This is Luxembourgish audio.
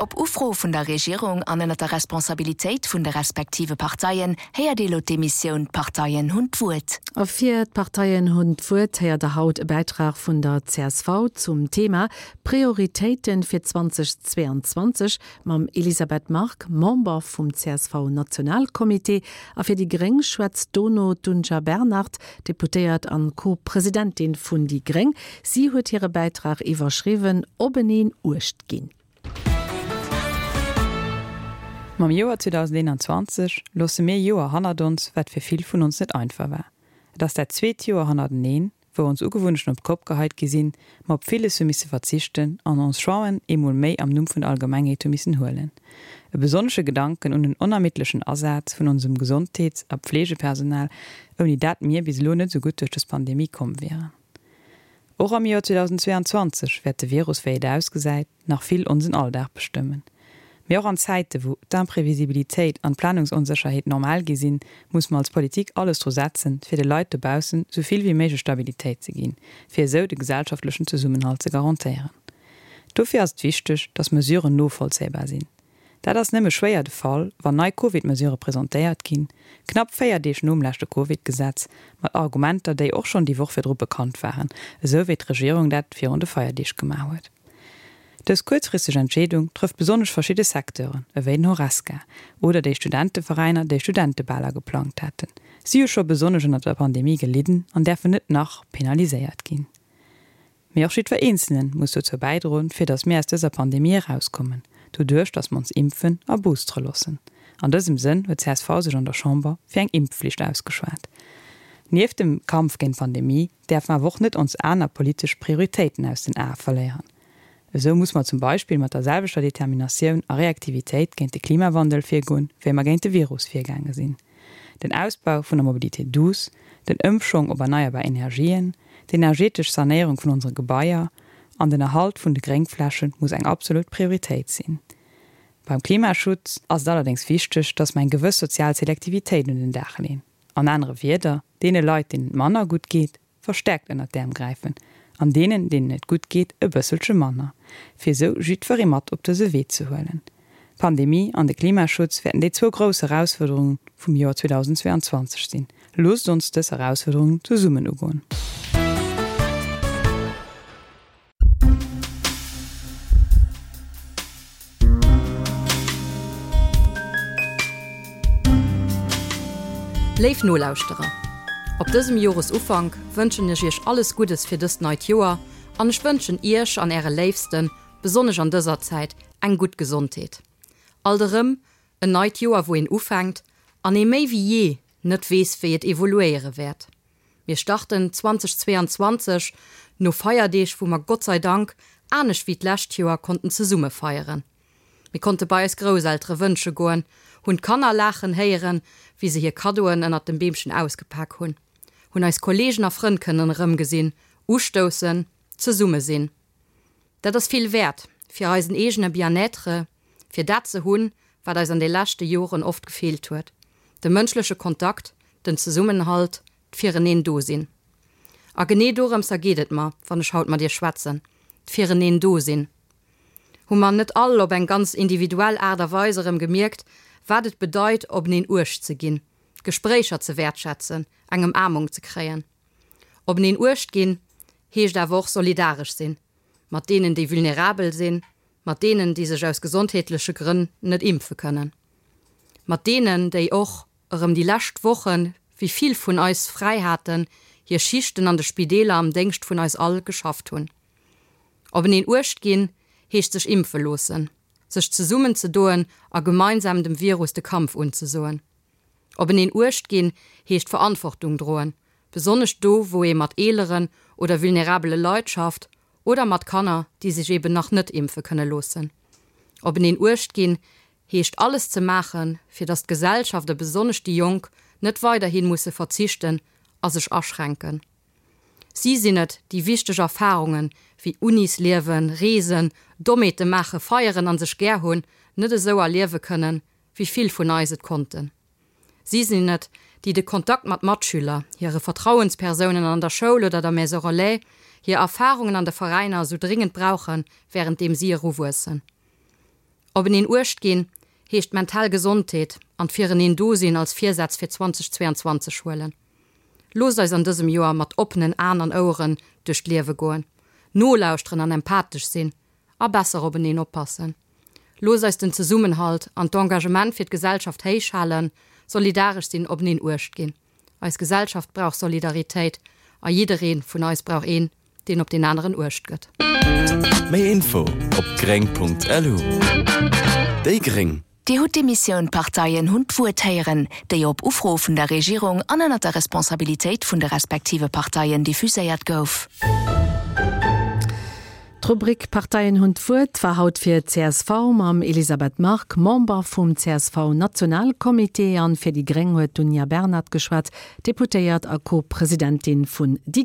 Op Ufro vun der Regierung an ënnert der Responsabilitéit vun de respektive Parteien héiert ee lo d'Emissioun D'Parteien hunn d'Wuert. A fir D'Parteien hunn d'Wuert héiert der haut e Bäitrag vun der csv zum Thema Prioritéiten fir 2022 mam Elisabeth Margue, Member vum CSV-Nationalcomité. A fir déi gréng schwätzt dono d'Dunja Bernard, Deputéiert an Co-Presidentin vun déi gréng. Si huet hire Bäitrag iwwerschriwwen Openeen Uecht ginn. Mam Joer 2021 loosse mir e Joer hannert ons, wat fir vill vun ons net einfach war. Et ass dat zweet Joer hannerteneen, wou ons Ugewunnechten op d'Kopp geheit gi sinn, mer op villes hu misse verzichten an ons Choixen eemol méi am Numm vun der Allgemengheet hu missen huelen. E besonnesche Gedanken un den onermiddlechen Asaz vun onsem Gesondheets a Pflegepersonal, ouni dat mir bis elo net esou gutt duerch dës Pandemie komm wieren. Och am Joer 2022 wäert de Virus, wéi et ausgesäit, nach vill onsen Alldag bestëmmen. Mee och an Zäite wou d'Imprevisibilitéit an d'Planungsonsécherheet normal gi sinn, muss mer als Politik alles dru setzen, fir de Leit dobaussen sou vill wéi méiglech Stabilitéit ze ginn, fir esou de gesellschaftlechen Zesummenhalt ze garantéieren. Dofir ass et wichteg, dass Mesuren novollzéibar sinn. Dat ass nëmme schwéier de Fall, wann nei Covid-Mesurë presentéiert ginn, knapp 4 Deeg nom leschte Covid-Gesetz, mat Argumenter, déi och schonn déi Woch virdru bekannt waren, esou wéi d'Regierung dat virun de Feierdeeg gemaach huet. Dës kuerzfristeg Entscheedung trëfft besonnesch verschidde Secteuren, ewéi den Horesca oder déi Studenteveräiner, déi Studentebaler geplangt haten. Si hu scho besonnesch ënnert der Pandemie gelidden an däerfen net nach penaliséiert ginn. Mee och jiddwer Eenzele muss dozou bäidroen, fir datt mir aus dëser Pandemie erauskommen, doduerch datt mer ons impfen a boostere loossen. An dësem Sënn huet csv sech an der Chamber fir eng Impfflicht ausgeschwat. Nieft dem Kampf géint d'Pandemie däerf mer awer och net ons aner politesch Prioritéiten aus den Ae verléieren. Esou muss mer zum Beispill mat der selwechter Determinatioun a Reaktivitéit géint de Klimawandel virgoen, wéi mer géint de Virus virgaange sinn. Den Ausbau vun der Mobilité douce, den Ëmschwong op erneierbar Energien, d'energetesch Sanéierung vun onsere Gebaier an den Erhalt vun de Gréngfläche muss eng absolut Prioritéit sinn. Beim Klimaschutz ass et allerdéngs wichteg, dass mer eng gewëss sozial Selektivitéit un den Dag leen. An anere Wierder, deene Leit, deenen et manner gutt geet, verstärkt ënnert d'Äerm gräifen an deenen, deenen et gutt geet, e bësselche manner, fir esou jiddweree mat op dëse Wee ze huelen. D'Pandemie an de Klimaschutz wäerten déi zwou grouss Erausfuerderungen vum Joer 2022 sinn. Loosst ons dës Erausfuerderungen zesummen ugoen. Léif Nolauschterer, op dësem Joresufank wënschen ech Iech alles Guddes fir dëst neit Joer an ech wënschen Iech an Äre Léifsten, besonnesch an dëser Zäit, eng gutt Gesondheet. Alt erëm en neit Joer wou een ufänkt an ee méi wéi jee net weess wéi et evoluéiere wäert. Mir starten 2022 no Feierdeeg, wou mer Gott sei Dank, anescht wéi d'lescht Joer, konnten zesumme feieren. Mir konnte bei eis Grousseltere wënsche goen, hunn d'Kanner laachen héieren, wéi se hir Kaddoen ënnert dem Beemchen ausgepak hunn, hunn eis Kolleegen a Frënn kënnen erëmgesinn, ustoussen, zesumme sinn. Dat ass vill wäert fir eisen eegene Bien-être, fir dat ze hunn, wat eis an de leschte Joren oft gefeelt huet, de mënschleche Kontakt, den Zesummenhalt, d'Fireneen do sinn. A genee dorëmser geet et mer, wann ech haut mat Iech schwätzen, d'Fireneen do sinn. Hu mer net all op eng ganz individuell Aart a Weis erëm gemierkt, wat et bedeit, openeen Uecht ze ginn, Gespréicher ze wäertschätzen, eng Ëmaarmung ze kréien? Openeen Uecht ginn heescht awer och solidaresch sinn, mat deenen, déi vulnerabel sinn, mat deenen, déi sech aus gesondheetleche Grënn net impfe kënnen, mat deenen, déi och erëm déi lescht Wochen, wéi vill vun eis fräi haten, hir Schichten an de Spideeler am Déngscht vun eis all geschafft hunn. Openeen Uecht ginn heescht sech impfe loossen, sech zesummenzedoen a gemeinsam dem Virus de Kampf unzesoen. Openeen Uecht ginn heescht Verantwortung droen, besonnesch do wou ee mat eeleren oder vulnerabele Leit schafft oder mat Kanner, déi sech eben nach net impfe kënne loossen. Openeen Uecht ginn heescht alles ze maachen, fir datt d'Gesellschaft a besonnesch déi Jonk net weiderhi musse verzichten a sech aschränken. Si sinn et, déi wichteg Erfarungen, wéi Unisliewen, Reesen, Dommheete maachen, feieren an sech gär hunn, net esou erliewe kënnen, wéi vill vun eis et konnten. Si sinn et, déi de Kontakt mat Matschüler, hire Vertrauenspersounen an der Schoul oder der Maison Relais, hir Erfarungen an de Veräiner esou dringend brauchen, wärenddeem si eruwuessen. Openeen Uecht ginn heescht d'mental Gesondheet an d'Fireneen do sinn als Virsätz fir 2022 huelen. Loosst eis an dësem Joer mat oppenen Aen an Oueren duerch d'Liewe goen, nolauschteren an empathesch sinn a besser openeen oppassen. Loosst eis den Zesummenhalt an d'Engagement fir d'Gesellschaft héich halen, solidaresch sinn, openeen Uecht ginn. Eis Gesellschaft brauch Solidaritéit a jidderee vun eis brauch een, deen op deen aneren Uecht gëtt. Méi Info op gréng.lu. Déi gréng. Dir hutt d'Emissioun D'Parteien hunn d'Wuert héieren, déi op Ufro vun der Regierung an ënner der Responsabilitéit vun de respektive Parteien diffuséiert gouf. D'Rubrik Parteien hunn d'Wuert war haut fir csv mam Elisabeth Margue, Member vum CSV-Nationalcomité, an fir déi gréng huet d'Dunja Bernard geschwat, Deputéiert a Co-Presidentin vun déi.